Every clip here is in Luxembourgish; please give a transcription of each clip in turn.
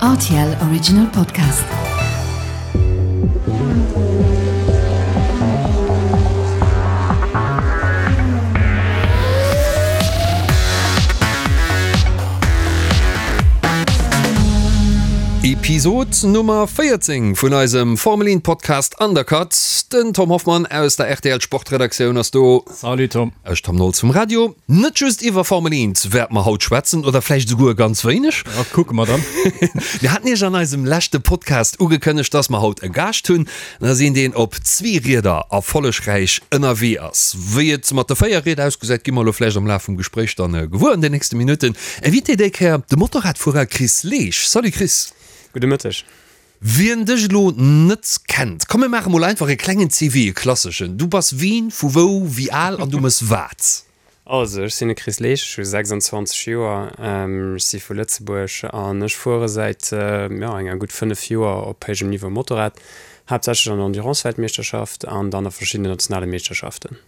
Rtl Original Podcast. Episod Nummer 14 vun eisem Formel 1 Podcast Undercut. Den Tom Hoffmann aus der rtl Sportredaktioun ass do. Salut Tom. Ech Tom Nolz vum Radio. Net just iwwer Formel 1 wäerte mer haut schwätzen, oder vläicht esouguer ganz wéineg. Ja, kucke mer dann. Mir haten iech an eisem leschte Podcast ugekënnegt, dass mer haut e Gaascht hunn. Dat ass een, deen op zwee Rieder erfollegräich ënnerwee ass. Wéi et mat de 4 Rieder ausgesäit, gi mer elo vläicht am Laf vum Gespréich dann gewuer an den nächste Minutten. Invité déi Kéier, de Motorradfuerer Chris Leesch. Salut Chris. Gudde Mëtteg. Wien dech elo net kennt, komm mir maache mol einfach e klengen CV, e klasseschen. Du bass wien, vu wou, wéi al an du mëss wat? Also, ech sinn de Chris Leesch, ech hu 26 Joer, ech si vu Lëtzebuerg an ech fuere säit, jo, enger gutt 5 Joer op héijem Niveau Motorrad, haaptsächlech an der Endurance-Weltmeeschterschaft an dann a verschiddenen nationale Meeschterschaften.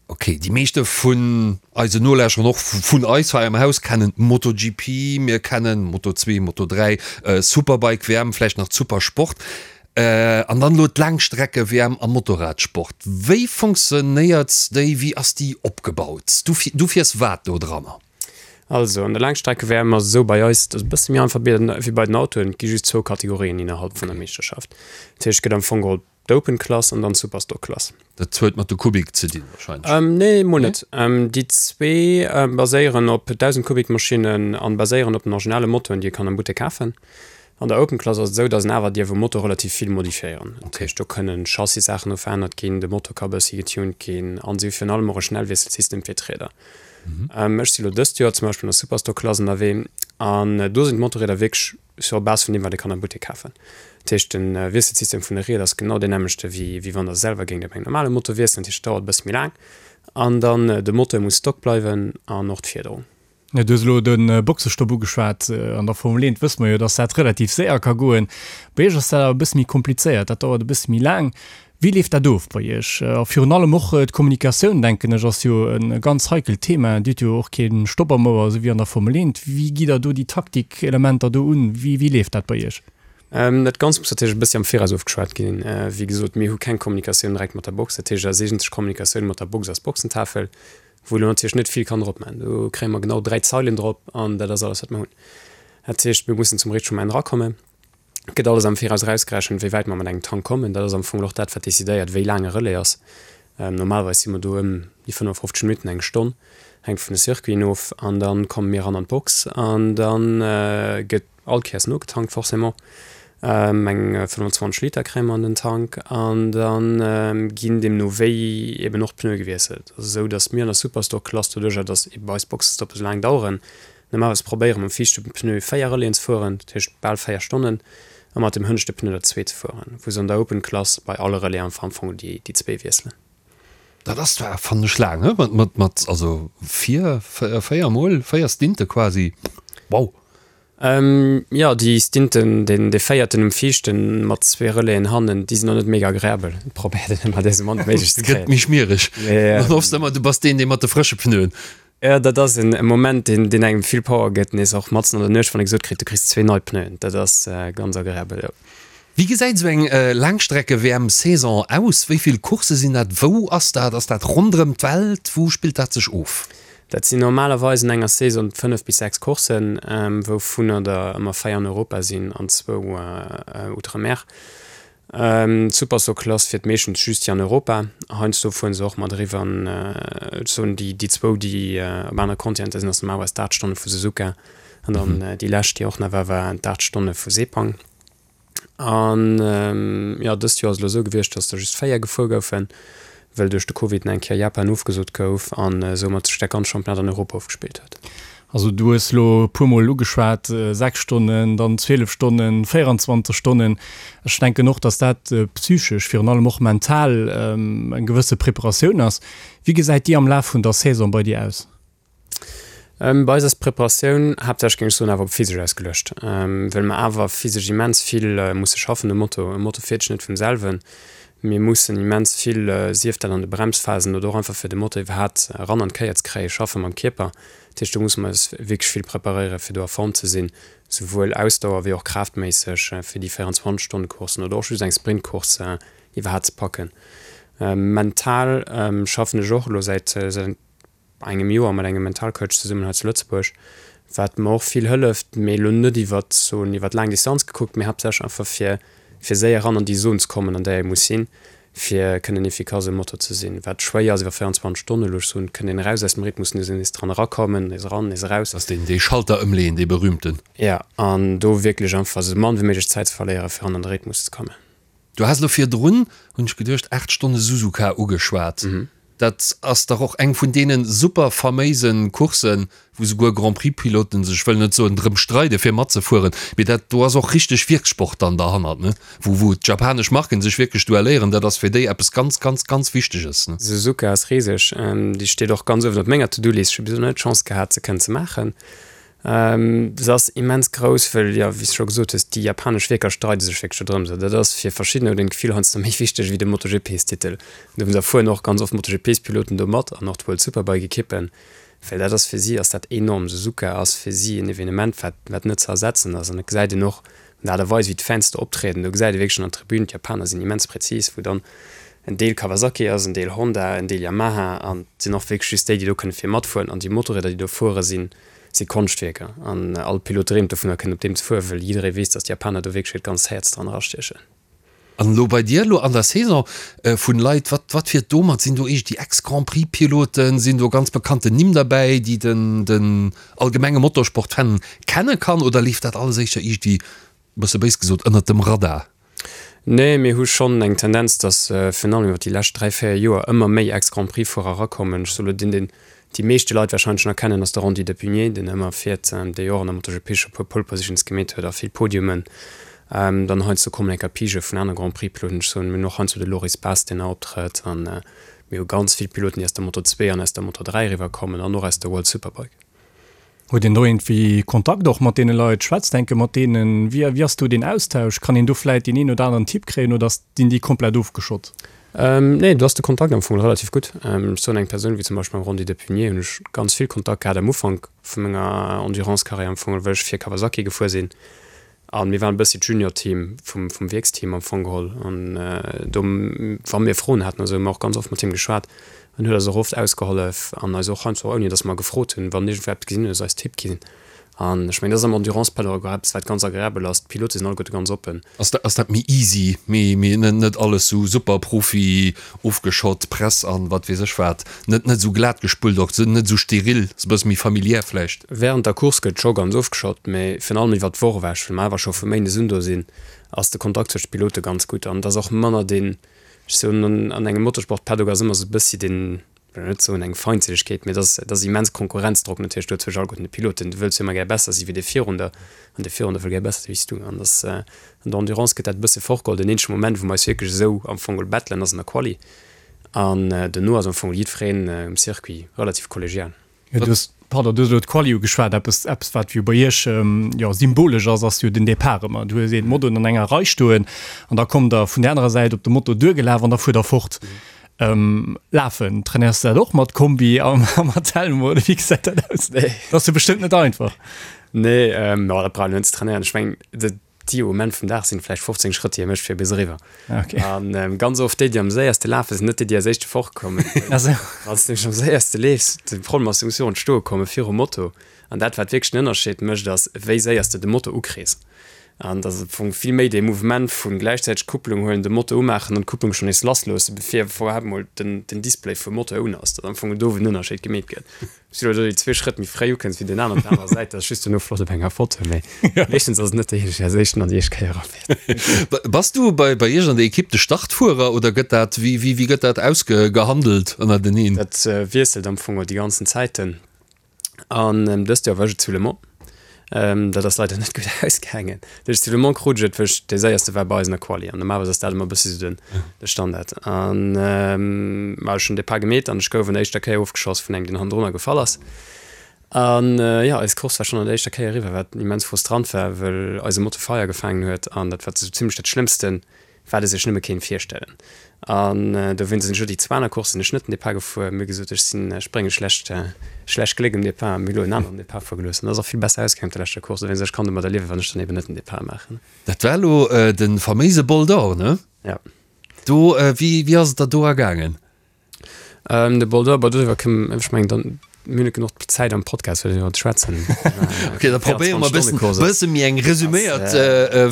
Ok, déi meeschte vun eisen Nolauschterern, och vun eis hei am Haus, kennen d'MotoGP, mir kennen Moto 2, Moto 3, Superbike WM, vläicht nach d'Supersport an dann elo d'Laangstrecke WM am Motorradsport. Wéi funktionéiert déi, wéi ass déi opgebaut? Du, du fiers wat do dranner? Also an der Laangstrecke WM ass et esou bei eis, dat ass e bësse méi einfach wéi bei den Autoen, et gi just zwou Kategorien innerhalb vun der Meeschterschaft. Dat heescht, et gëtt am Fong geholl D'Open Klass an dann d'Superstock Klass. Dat huet mat de Kubik ze dinn wahrscheinlech? Nee, mol net. Déi zwee baséieren op 1.000 Kubik Maschinnen an baséieren op den originale Motoren, déi ee kann am Buttek kafen. An der Open Klass ass et esou, dass een awer dierf um Motor relativ vill modifiéieren. Dat heescht, do kënnen Chassis-Saachen no verännert ginn, de Motor ka bëssi getuned ginn an si hu virun allem och e Schnellwiesselsystem fir d'Rieder. Ech si lo dëst Joer zum Beispill an der Superstock Klass ënnerwee an do sinn d'Motorrieder wierklech Sur Base vun deem, wat ee kann am Buttek kafen. Dat heescht, de Wiesselsystem vun de Ried ass genau deen nämmlechte wéi wéi wann Der selwer géingt op engem normale Motor wiesselen. Dat heescht, et dauert e bësse méi laang. An dann, de Moteur muss stock bleiwen an och d'Fiederung. Du hues elo de Boxestopp ugeschwat. An der Formel 1 wësse mer jo, dass dat relativ séier ka goen. Bei Iech ass dat awer e bësse méi komplizéiert, dat dauert e bësse méi laang. Wéi leeft dat of bei Iech? A virun allem och d'Kommunikatioun, denken ech, ass jo e ganz heikelt Thema. Dir hutt jo och kee Stopp am Ouer, esou wéi an der Formel 1. Wéi gitt Der do déi Taktikelementer do un? Wéi wéi leeft dat bei Iech? Dat Ganzt muss natierlech e bëssi am Viraus ofgeschwat ginn. Wéi gesot, mir hu keng Kommunikatioun direkt mat der Box. Dat heescht, eis eegentlech Kommunikatioun mat der Box ass d'Boxentafel, wou elo natierlech net vill kann drop maachen. Do kréie mer genau 3 Zeilen drop an dat ass alles, wat mer hunn. Dat heescht, mir mussen zum richtege Moment erakommen. Et gëtt alles am Viraus erausgerechent, wéi wäit mer mat engem Tank kommen. Dat ass am Fong och dat, wat decidéiert, wéi laang e Relais ass. Normalerweis si mer do ëm déi 55 Minutten, eng Stonn, hänkt vun de Circuiten of. An da komme mir eran an d'Box an da gëtt all Kéiers nogetankt forcément. Eng 25 Liter kréie mer an den Tank an da ginn deemno wéi eben och d'Pneue gewiesselt. Et ass esou, datt mir an der Superstock-Klass, doduercher datt ebe eis Boxestoppe esou laang daueren, Normalerweis probéiere mam viischte Pneu 4 Relaisen ze fueren, dat heescht bal 4 Stonnen, a mat dem hënneschte Pneu der zwee ze fueren, wou se an der Open Klass bei alle Relaisen einfach am Fong déi zwee wiesselen. Dat ass zwar, fannen ech, laang, he? Mat, mat, mat, also vier, véier mol, véier Stinte quasi. Wow! Jo, déi Stinten, deen, dee véierten um viischten mat zwee Relaisen hannen, déi sinn och net mega agreabel. Et probéiert een ëmmer, déi esou mann wéi méiglech ze kréien. Gëtt méi schmiereg. Dann hoffs de ëmmer, du bass deen, dee mat de frësche Pneuen. Jo, dat ass en Moment, deen, deen engem vill Power gëtt, nees och matzen an der Nuecht, wann ee gesot kritt, du kriss zwee nei Pneuen. Dat ass ganz agreabel, jo. Wéi gesäit esou eng Laangstrecke-WM-Saison aus? Wéi vill Coursse sinn dat? Wou ass dat? Ass dat ronderëm d'Welt? Wou spillt dat sech of? Dat sinn normalerweis an enger Saison 5 bis 6 Courssen, wouvunner der ëmmer 4 an Europa sinn an zwou outre-mer. D'Supersoc-Klass fiert meeschtens just déi an Europa. Heiansdo fueren se och mat eriwwer an, ech soen, déi déi zwou, déi op anere Kontinenter sinn, ass normalerweis d'Aacht Stonne vu Suzuka an dann déi lescht, déi och nach war, war d'Aacht Stonne vu Sepang. An jo, dëst Joer ass et elo esou gewiescht, datt der just 4 gefuer goufen, well duerch de Covid nach eng Kéier Japan ofgesot gouf an soumat sech dat ganz Championnat an Europa ofgespillt huet. Also du hues elo e puer Mol ugeschwat, 6 Stonnen, dann 12 Stonnen, 24 Stonnen. Ech denken och, datt dat psychesch, virun allem och mental eng gewësse Preparatioun ass. Wéi gesäit déi am Laf vun der Saison bei dir aus? Bei eis ass d'Preparatioun haaptsächlech, géing ech soen, awer op physesch ausgeluecht, well mer awer physesch immens vill musse schaffen um Moto. E Moto fiert sech net vum selwen. Mir mussen immens vill, sief dat an de Bremsphasen oder och einfach fir de Motor iwwerhaapt eran an d'Kéier ze kréien, schaffe mam Kierper. Dat heescht, do musse mer eis wierklech vill preparéieren, fir do a Form ze sinn, souwuel Ausdauer wéi och kraaftméisseg, fir déi 24 Stonne Courssen oder och just eng Sprintcourse iwwerhaapt ze packen. Mental schaffen ech och elo säit engem Joer mat engem Mentalcoach zesummen hei zu Lëtzebuerg, wat mer och vill hëlleft, mee elo net iwwert soen iwwert laang Distanz gekuckt, mee haaptsächlech einfach fir fir séier eran an déi Zon ze kommen, an där ee muss sinn, fir kënnen efficace um Motor ze sinn, wat schwéier ass iwwer 24 Stonnen. Elo ech soen, kënnt een eraus aus dem Rhythmus, nees nees dran erakommen, nees eran, nees eraus. Ass deen dee Schalter ëmleeën, dee berühmten. Jo, an do wierklech einfach esou mann wéi méiglech Zäit ze verléieren, fir eran an de Rhythmus ze kommen. Du has elo virdrun, hunn ech geduecht, 8 Stonne Suzuka ugeschwat. Dat ass dach och eng vun deene super faméise Courssen, wou souguer Grand-Prix-Piloten sech, wëll net soen drëm streide fir matzefueren, mee dat do ass och richteg Wierkssport dann derhannert, ne? Wou, wou d'japanesch Marken sech wierklech duelléieren, dat ass fir déi eppes ganz, ganz, ganz Wichteges, ne? Suzuka ass riseg. Déi steet och ganz uewen op menger To-Do-List. Ech hu bis elo net d'Chance gehat, se kënnen ze maachen. Se ass immens grouss, wëll, jo, wéi s de scho gesot hues, déi japanesch Wierker streide sech wierklech do drëms. Dat ass fir verschiddener huet een d'Gefill heiansdo méi wichteg wéi de MotoGP-Titel. Dowéinst erfueren och ganz oft MotoGP-Piloten do mat an och d'World Superbike-Ekippen, well dat ass fir si ass dat enorm. Suzuka ass fir si en Evenement, wat, wat net ze ersetzen ass. An et gesäit een och un der Aart a Weis, wéi d'Fans do optrieden. Do gesäit ee wierklech an der Tribün, d'Japaner sinn immens präzis, wou dann en Deel Kawasaki ass, en Deel Honda, en Deel Yamaha an et sinn och wierklech just déi, déi do kënne vir matfueren. An déi Motorrieder, déi do fuere sinn si Konschtwierker an all Pilot dreemt dovunner kënnen op deem ze fueren, wëll jidderee weess, dass d'Japaner do wierklech hiert ganzt Häerz dran erastiechen. An elo bei dir elo an der Saison vun Leit, wat wat fiert do mat? Sinn do eescht déi Ex-Grand-Prix-Piloten, sinn do ganz bekannten Nimm derbäi, déi den den allgemenge Motorsport-Fan kenne kann, oder leeft dat alles éischter iergendwéi bësse béis gesot, ënnert dem Radar? Nee, mir hu schonn eng Tendenz, datt virun allem iwwer déi lescht 3, 4 Joer ëmmer méi Ex-Grand-Prix-Fuerer erakommen. Ech soe lo deen, deen déi meeschte Leit warscheinlech nach kennen, ass de Randy de Puniet, deen ëmmer fiert, dee jo och an der MotoGP scho puer Pole Positions gemeet huet a vill Podiumen. Dann heiansdo kommen enker Pigë vun anere Grand-Prix-Piloten. Ech soen, mir hunn och heiansdo de Loris Baz, deen nach optrëtt. A mir hu ganz vill Piloten, déi aus der Moto 2 an aus der Moto 3 eriwwerkommen an och aus der World Superbike. Huet een do iergendwéi Kontakt och mat deene Leit? Schwätzt enke mat deenen? Wéi wéi ass do deen Austausch? Kann een do vläit deen een oder aneren Tipp kréien oder sinn déi komplett ofgeschott? Nee, do ass de Kontakt am Fong relativ gutt. Ech soen, eng Persoun wéi zum Beispill mam Rondy de Puniet hunn ech ganz vill Kontakt gehat am Ufank vu menger Endurance-Karriär am Fong, wëll ech fir Kawasaki gefuer sinn. A mir waren e bëssi d'Junior-Team vum, vum Wierksteam am Fong geholl. An do, wa mir Froen haten, also hu mir och ganz oft mat him geschwat. En huet eis och oft ausgehollef an eis och heiansdo, ouni datt mer gefrot hunn, wann iergendwou eppes gesinn huet, eis Tipp ginn. An ech mengen, dat ass am Endurance-Paddock och eppes, wat ganz agreabel ass. D'Pilote sinn alleguerte ganz oppen. Ass dat, ass dat méi easy, méi, méi net, net alles sou super Profi ofgeschott, Press an wat weess ech wat, net, net sou glat gespullt och, net sou steril, sou bësse méi familiär vläicht? Während der Course gëtt scho ganz ofgeschott, mee virun allem iwwert d'Woch ewech, well mer awer scho vu Méindes un do sinn, ass de Kontakt zwëscht de Pilote ganz gutt an et ass och manner deen, ech soen, an engem Motorsport-Paddock ass ëmmer sou e bëssi deen, wëll net soen eng Feindselegkeet, mee et ass, et ass immens Konkurrenzdrock natierlech do zwëscht alleguerten de Piloten. Du wëlls jo ëmmer gär besser si wéi dee virun der an dee virun der wëll gär besser si wéi s du. An dass an der Endurance gëtt dat e bësse fortgeholl. Den eenzege Moment, wou mer eis wierklech esou am Fong geholl battelen, ass an der Quali an duerno ass am Fong jiddwereen um Circuit relativ kollegial. Jo, du hues, pardon, du hues elo d'Quali ugeschwat. Eppes, eppes wat jo bei Iech jo symbolesch ass, ass jo den Depart ëmmer. Du hues een Motoen an enger Rei stoen an da kommt der vun där anerer Säit op de Moto duergelaf an da fuert der fort. Lafen, trainéiers du dat och mat Kombi a mat Helm oder wéi gesäit dat aus? Nee. Dat ass jo bestëmmt net einfach. Nee, jo, dat brauch een net ze trainéieren. Ech mengen, déi Moment vum Dag sinn vläicht 15 Schrëtt, déi e mécht fir bis eriwwer. Okay. An ganz oft déi, déi am séierste lafen, sinn net déi, déi als éischte fortkommen. Ah sou. Wann s de nämlech am séierste leefs, de Problem ass, du muss virun d'Stoe komme virum Moto. An dat, wat wierklech den Ënnerscheed mécht, ass, wéi séier s de de Moto ukriss. An et ass am Fong vill méi dee Mouvement vu gläichzäiteg d'Kupplung huelen, de Moto umaachen an d'Kupplung schonn nees lassloossen, bevir iwwerhaapt mol den Display vum Moto un ass. Dat ass am Fong do, wou den Ënnerscheed gemeet gëtt. Wann s du elo déi zwee Schrëtt méi fréi ukënns wéi deen aneren op der anerer Säit, dat ass just duerno flott op enger Foto, mee meeschtens ass et net dee, deen als éischten an déi éischt Kéier erafäert. Bass du bei bei iech an der Ekipp de Startfuerer oder gëtt dat, wéi wéi gëtt dat ausgehandelt ënnerteneen? Dat wiesselt am Fong déi ganzen Zäiten. An dëst Joer war ech et zu Le Mans. Dat ass leider net gutt ausgaangen. Dat heescht, zu Le Mans krut ech et, well ech dee Séierste war bei eis an der Quali. An normalerweis ass dat ëmmer e bëssi sou den, de Standard. An ma ech hunn Depart gemeet an ech gouf an der éischter Kéier ofgeschoss vun engem, deen hannendrunner gefall ass. An jo, eis Course war schonn an der éischter Kéier eriwwer, wat immens frustrant war, well eise Moto Feier gefaangen huet. An dat war sou zimmlech dat Schlëmmsten. Wat e sech nëmme kéint virstellen. An dowéinst sinn ech elo déi zwou aner Courssen ech net den Depart gefuer. Mir hu gesot, ech sinn, ech brénge schlecht, schlecht Gléck um Depart a mir hu elo en aneren Depart fuere gelooss. An dat ass och vill besser ausgaangen op der leschter Course. Dowéinst, ech kann domadder liewen, wann ech dann eben net den Depart maachen. Dat war elo de faméise Bol d'Or, ne? Ja. Do, wéi, wéi ass et der do ergaangen? Ähm, de Bol d'Or, bon, doriwwer kënnen, ech mengen, dann, mir hunn net genuch Zäit am Podcast, fir doriwwer ze schwätzen. Okay, da probéiere mer e bëssen, bësse méi eng resuméiert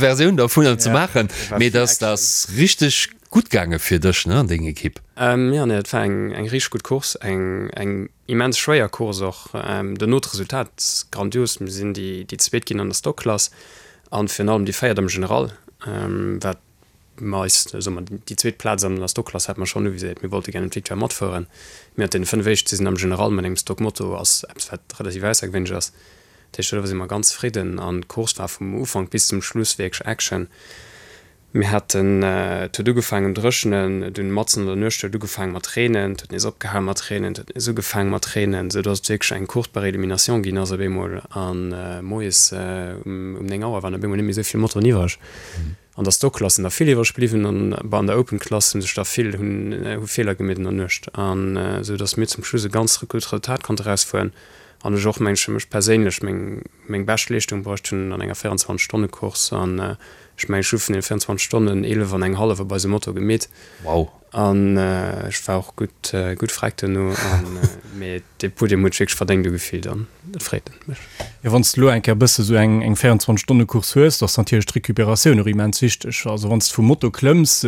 Versioun dervunner ze maachen. Mee dass dat ass richteg gutt gaange fir dech, ne, an deng Ekipp. Ähm, jo, nee, dat war eng, eng richteg gutt Course, eng, eng immens schwéier Course och. Dono d'Resultat grandios, mir sinn déi, déi Zweet ginn an der Stock-Klass an virun allem déi Véiert am General, wat mer eis, soe mer, déi zweet Plaz an der Stockklass hate mer schonn uviséiert. Mir wollte gären d'Victoire matfueren. Mir haten deene 5 éischt sinn am General mat engem Stockmoto ass eppes wat relativ aussergewéinlech ass. Dat heescht doriwwer si mer ganz zefridden an d'Course war vum Ufank bis zum Schluss wierklech Action. Mir haten, et huet ugefaangen dréchenen, dunn matzen an der Nuecht huet et ugefaangen mat reenen, et huet nees opgehal mat reenen, et huet nees ugefaangen mat reenen, esou dass et wierklech eng Course par élimination ginn ass op eemol an moies um 9 Auer waren op eemol net méi esou vill Motoren iwwereg. An der Stock-Klass sinn der vill iwwreg bliwwen an bei an der Open-Klass hu sech der vill hunn hu Feeler gemeet an der Nuecht an esou datt mir zum Schluss e ganz gutt Resultat konnte erausfueren an ech och meng fir mech perséinlech meng meng bescht Leeschtung bruecht hunn an enger 24 Stonne Course an ech mengen ech hu vun den 24 Stonnen 11 an eng hallef op eisem Moto gemeet. Wow. An ech war och gutt gutt freck duerno an mee dee Podium huet sech wierklech verdéngt ugefillt an dat freet mech. Jo wann s de elo eng Kéier e bësse sou eng eng 24 Stonne Course hues, da ass natierlech d'Recuperatioun och immens wichteg. Also wann s de vum Moto klëmms,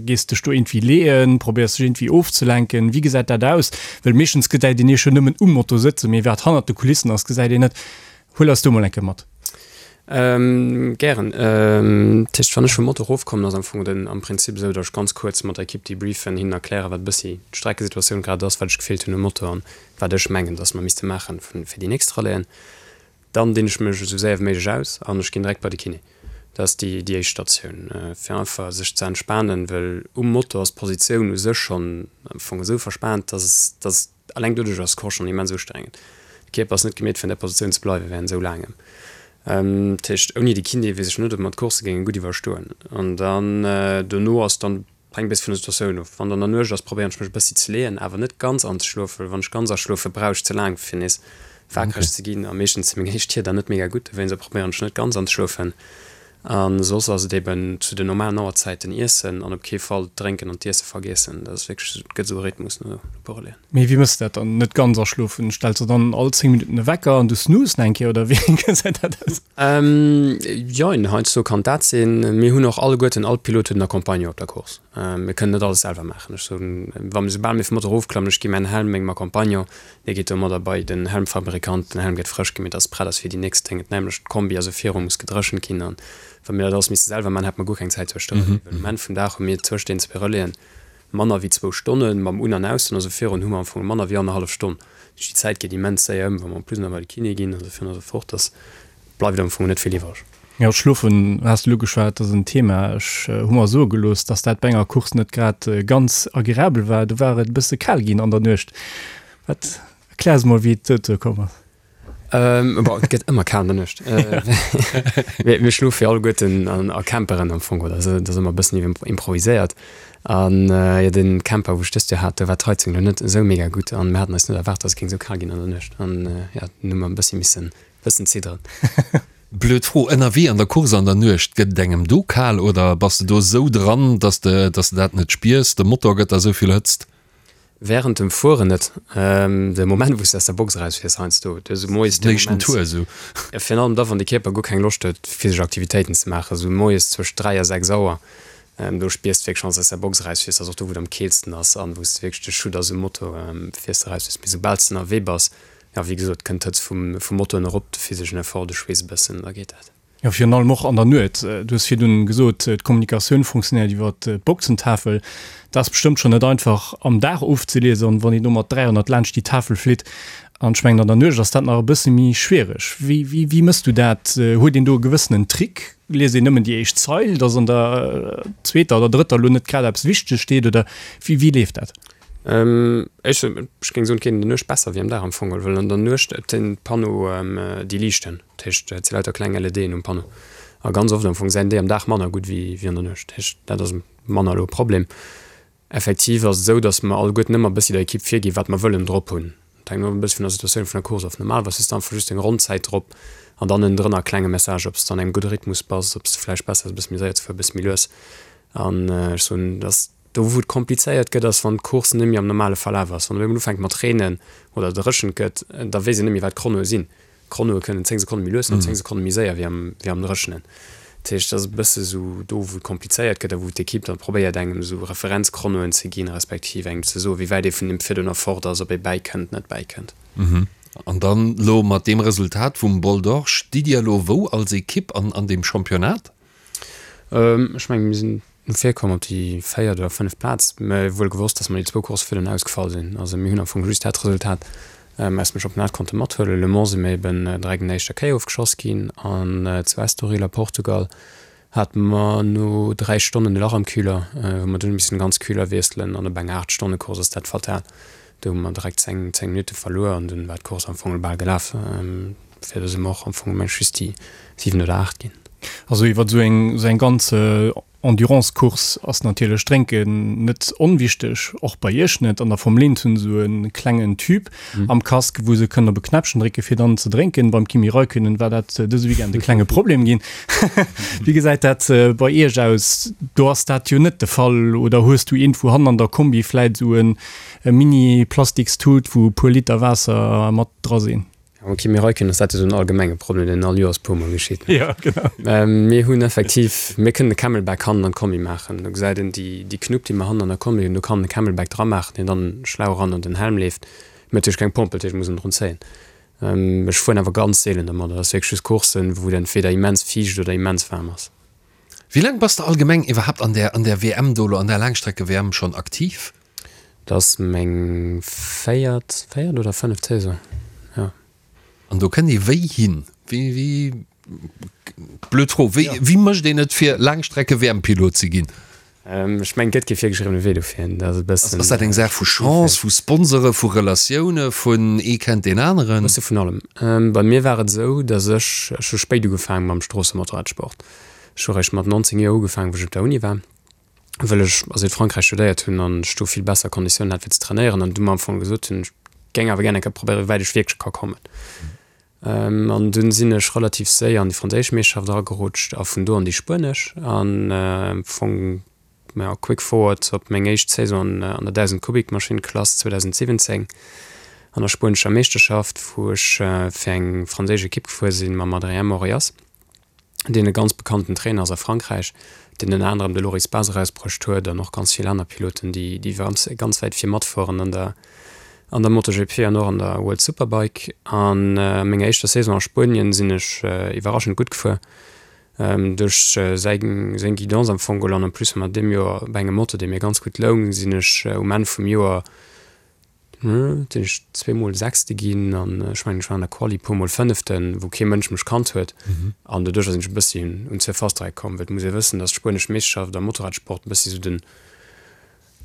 gees dech do iergendwéi leeën, probéiers dech iergendwéi ofzelenken. Wéi gesäit dat aus? Well meeschtens gesäit een iech jo nëmmen um Moto sëtzen, mee wat hannert de Kulissen ass, gesäit een net. Huel eis do mol eng Kéier mat. Gären. Dat heescht, wann ech vum Moto erofkommen, ass am Fong den am Prinzip esou, datt ech ganz kuerz mat der Ekipp debriefen, hinnen erklären, wat e bëssi d'Streckesituatioun grad ass, wat ech gefillt hunn um Moto an wat ech mengen, datt mer misste maachen fir déi nächst Rallyen. Dann dinn ech mech esou séier wéi méiglech aus an ech ginn direkt bei de Kiné. Dat ass déi déi éischt Statioun, fir einfach sech ze entspanen, well um Moto ass d'Positioun u sech schonn am Fong esou verspaant, datt datt Alleng doduerch ass d'Course schonn immens ustrengend. De Kierper ass net gemeet fir an där Positioun ze bleiwe während esou laangem. Dat heescht, ouni de Kiné weess ech net, ob mer d'Course géinge gutt iwwerstoen. An dann dono ass dann, hänkt e bëssi vun der Situatioun of. Wann dann der Nuecht ass, probéieren ech mech e bëssi ze leeën, awer net ganz anzeschlofen, well wann ech ganz aschlofe brauch ech ze laang fir nees wakereg ze ginn a meeschtens si meng éischt Tier dann net mega gutt, dowéinst probéieren ech net ganz anzeschlofen. A soss ass et eben zu den normalen Auerzäiten iessen an op kee Fall d'Drénken an d'Iesse vergiessen. Dat ass wierklech, et gëtt esou e Rhythmus no e puer Relaiën. Mee wéi mëss de dat dann, net ganz aschlofen? Stells de dann all 10 Minutten e Wecker an du snooze eng Kéier oder wéi gesäit dat aus? Jein, heiansdo kann dat sinn. Mir hunn och alleguerten, all Pilot huet en Accompagnant op der Course. Mir kënnen net alles selwer maachen. Ech soen, wa mir, soubal mir vum Motor erofklammen, ech gi mäin Helm mengem Accompagnant, Dee geet domadder bei den Helmfabrikant, den Helm gëtt frësch gemeet, dass prett ass fir déi nächst Déng. Et nämlech d'Kombi also viru muss gedréchent ginn an wa mir dat alles misste selwer man, hätte mer guer keng Zäit zwëscht de Relaisen. Well um Enn vum Dag hu mir zwëscht den zwee Relaisen manner wéi zwou Stonnen mam Un an Aus, also virun hu mer am Fong manner wéi annerhallef Stonn. Dat heescht déi Zäit geet immens séier ëm, wa mer en plus nach bei de Kiné ginn an esou virun a sou fort, dass bleift am Fong net vill iwwereg. Jo, d'Schlofen has de elo ugeschwat, ass en Thema. Ech hu mer soe gelooss, dass dat bei enger Course net grad ganz agreabel war. Do war et e bësse kal ginn an der Nuecht. Wat, erklär eis mol, wéi et dozou komm ass. Bon, et gëtt ëmmer kal an der Nuecht. Mir schlofe jo alleguerten a Camperen am Fong, oder? Dat ass ëmmer e bëssen improviséiert. An jo, de Camper, wou ech dëst Joer hat, do war d'Heizung elo net esou mega gutt an mir haten eis net erwaart, dass et géing esou kal ginn an der Nuecht. An jo, dunn hu mer e bëssi missen Bëssen zidderen. Blöd Fro, ënnerwee an der Course an der Nuecht, gëtt et engem do kal oder bass de do esou dran, dass de dass de dat net spiers, de Motor gëtt der esou vill Hëtzt? Während dem Fueren net. De Moment wou s de aus der Box erausfiers heiansdo, du hues esou moies de Moment, Tour esou. Virun allem da wann de Kierper guer keng Loscht huet physesch Aktivitéiten ze maachen, esou moies zwëscht 3 a 6 Auer, do spiers de wierklech wann s de aus der Box erausfiers, ass och do wou et am keelsten ass an wou s de wierklech de Schutt ass um Moto, fiers de erausfiers. Mee soubal s de ënnerwee bass, Jo, wéi gesot, kënnt d'Hëtzt vum Motor erop, de physeschen Effort, de Schweess e bëssen, da geet dat. Jo, virun allem och an der Nuet. Du hues virdun gesot, d'Kommunikatioun funktionéiert iwwer d'Boxentafel. Dat ass bestëmmt schonn net einfach am Dag ofzeliesen, wann een do mat 300 laanscht déi Tafel flitt. An ech mengen, an der Nuecht ass dat nach e bësse méi schwiereg. Wéi, wéi, wéi mëss du dat? Huet een do e gewëssenen Trick? Liest een nëmmen déi éischt Zeil, dass an der zweeter oder drëtter elo net grad eppes Wichteges steet, oder wéi, wéi leeft dat? Ech géing soen, et geet an der Nuecht besser wéi am Dag am Fong, well an der Nuecht den Panneau déi liichten, dat heescht et si lauter kleng LEDen um Panneau. A ganz oft am Fong säin déi am Dag manner gutt wéi wéi an der Nuecht. Dat heescht, dat ass manner elo e Problem. Effektiv ass et esou, datt mer alleguerten ëmmer e bëssi der Ekipp virginn, wat mer wëllen drop hunn. Dat hänkt och e bëssi vun der Situatioun vun der Course of. Normalerweis hues de einfach just deng Ronnzäit drop an dann ënnendrënner e klenge Message, ob s de an engem gudde Rhythmus bass, ob s de vläicht besser ass e bësse méi séier ze fueren, e bësse méi lues. An ech soen, datt do wou et komplizéiert gëtt, ass wann d'Course net méi am normale Verlaf ass. Wann op eemol ufänkt mat reenen oder dréchent gëtt, da weess een net méi wat d'Chronoe sinn. D'Chronoe kënnen 10 Sekonne méi lues sinn oder 10 Sekonne méi séier wéi am, wéi am Dréchenen. Dat heescht, dat ass e bësse sou do, wou et komplizéiert gëtt a wou d'Ekipp dann probéiert, engem esou Referenzchronoen ze ginn, respektiv engem ze soen, wéi wäit ee vun deem virdrun erfort ass, ob ee bäikënnt, net bäikënnt. An dann elo mat deem Resultat vum Bol d'Or, stitt Dir elo wou als Ekipp an, an deem Championnat? Ech mengen, mir sinn no vir komm op déi véiert oder fënneft Plaz, mä wuel gewosst, dass mer déi zwou Coursse virdrun ausgefall sinn. Also mir hunn am Fong just dat Resultat aus dem Championnat konnte mathuelen. Le Mans si mir eben direkt an der éischter Kéier ofgeschoss ginn an zu Estoril a Portugal hate mer no 3 Stonnen e Lach am Kühler, wou mer dunn hu missen de ganz Kühler wiesselen an op enger 8 Stonne Course ass dat fatal. Do hu mer direkt 10, 10 Minutte verluer an dunn war d'Course am Fong bal gelaf. Fir do si mer och am Fong mengen ech just déi 7 oder 8 ginn. Also iwwer esou eng esou eng ganz Endurance-Course ass natierlech Drénken net onwichteg, och bei iech net. An der Formel 1 hunn se esou e klengen Tube am Casque, wou se kënnen op e Knäppchen drécke fir dann ze drénken. Beim Kimi Räikkönen war dat dëse Weekend e klenge Problem ginn. Wéi gesäit dat bei iech aus? Do ass dat jo net de Fall. Oder hues du eent wou hannen an der Kombi vläit esou e Mini-Plastikstut, wou e puer Liter Waasser mat dra sinn? Am Kimi Räikkönen ass dat jo esou en allgemenge Problem, deen all Joers puer mol geschitt. Ja, genau. Mir hunn effektiv, mir kënnen e Camelback hannen an d'Kombi maachen. Do gesäit een déi, déi Knupp, déi mer hannen an der Kombi hunn, do kann en e Camelback dra maachen, deen dann schlau eran an den Helm leeft. Mir hunn natierlech keng Pompel, dat heescht, mir mussen drun zéien. Ech fueren awer ganz seelen domat. Dat ass wierklech just Courssen, wou et entweder immens fiicht oder immens waarm ass. Wéi laang bass de allgemeng iwwerhaapt an där, an där WM do elo, an där Laangstrecke-WM schonn aktiv? Dat ass meng véiert, véiert oder fënneft Saison, jo. An do kënnt ee wéi hin? Wéi, wéi, blöd Fro, wéi, wéi mécht een et fir Laangstrecke-WM-Pilot ze ginn? Ech mengen, et gëtt kee virgeschriwwene Wee dofir. Dat ass e bëssen. Ass dat eng Saach vu Chance, vu Sponsore, vu Relatioune, vun ee kennt deen aneren? E bësse vun allem. Bei mir war et esou, datt ech, ech hu spéit ugefaange mam Stroossemotorradsport. Ech hu réischt mat 19 Joer ugefaangen, wou ech op der Uni war, wëll ech a Südfrankräich studéiert hunn an ech do vill besser Konditiounen hat fir ze trainéieren an du mer am Fong gesot hunn, ech géing awer gär eng Kéier probéieren, wéi wäit ech wierklech ka kommen. An dunn sinn ech relativ séier an déi franséisch Meeschterschaft eragerutscht a vun do an déi spuenesch an am Fong, ja, quick forward op meng éischt Saison an der 1000 Kubik Maschinn Klass 2017 an der spuenescher Meeschterschaft, wou ech fir eng franséisch Ekipp gefuer sinn mam Adrien Morillas. deen e ganz bekannten Trainer ass a Frankräich, deen ënner anerem de Loris Baz erausbruecht huet an och ganz vill aner Piloten, déi déi ganz ganz wäit vir matfueren an der an der MotoGP an och an der World Superbike. An a menger éischter Saison a Spuenien sinn ech iwwerraschend gutt gefuer, duerch säi seng Guidance am Fong geholl an en plus mat deem Joer op engem Moto, dee mir ganz gutt loung, sinn ech um Enn vum Joer Sinn ech zweemol Sechste ginn an ech mengen ech war an der Quali puermol Fënneften, wou kee Mënsch mech kannt huet. An doduercher sinn ech e bëssi un d'Surface dra komm, well et muss ee wëssen, datt d'spuenesch Meeschterschaft am Motorradsport e bëssi sou den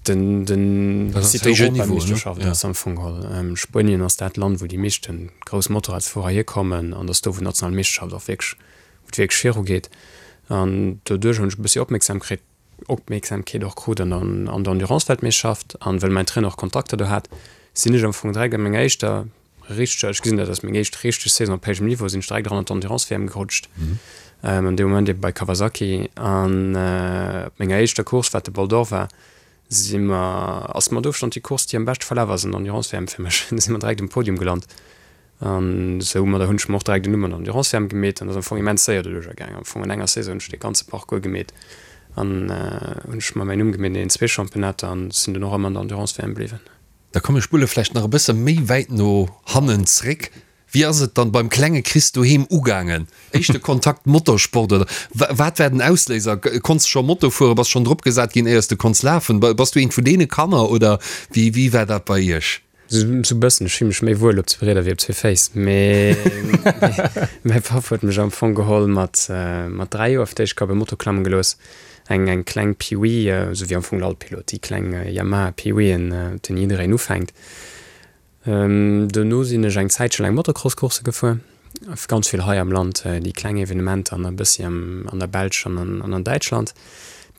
den den Europameeschterschaft ass am Fong geholl. Spuenien ass dat Land, wou déi meeschte grouss Motorradsfuerer hierkommen an ass do wou d'national Meeschterschaft och wierklech wou et wierklech virugeet. An doduerch hunn ech e bëssi Opmierksamkreet Opmierksamkeet och krut an an der Endurance-Weltmeeschterschaft an well mäin Trainer och Kontakter do hat, sinn ech am Fong direkt an menger éischter richteger, ech gesinn dat als meng éischt richteg Saison op héijem Niveau, sinn ech direkt eran an d'Endurance-WM gerutscht, an deem Moment ebe bei Kawasaki. An op menger éischter Course, wat de Bol d'Or war, si mer, ass mat Ofstand déi Course, déi am beschte verlaf ass an der Endurance-WM fir mech, si mer direkt um Podium gelant. An soumadder hunn ech mer och direkt en Numm an der Endurance-WM gemeet an ass am Fong immens séier doduercher gaangen. Am Fong an enger Saison hunn ech dee ganze Parcours gemeet an hunn ech mer mäin Numm gemeet an deenen zwee Championnater an sinn dunn och ëmmer an der Endurance-WM bliwwen. Da komm mir spulle vläicht nach e bësse méi wäit no hannen zréck. Wéi ass et dann beim klenge Chris doheem ugaangen? Éischte Kontakt Motorsport oder wat war den Ausléiser? Konns de scho Moto fueren? Bass schonn drop gesat ginn éiers de konns lafen? Bass du eent vun deene Kanner oder wéi wéi war dat bei iech? Sou bëssen, ech fill mech méi wuel op zwee Rieder wéi op zwee Féiss, mee mäi Papp huet mech am Fong geholl mat mat 3 Joer fir d'éischt Kéier op e Moto klamme gelooss, eng eng kleng Pee-Wee, sou wéi am Fong all Pilot, déi kleng Yamaha Pee-Weeën, op deenen jiddereen ufänkt. Dono sinn ech eng Zäitche laang Motocross-Coursse gefuer. Ganz vill hei am Land, déi kleng Evenementer an e bëssi an der Belsch an an Däitschland,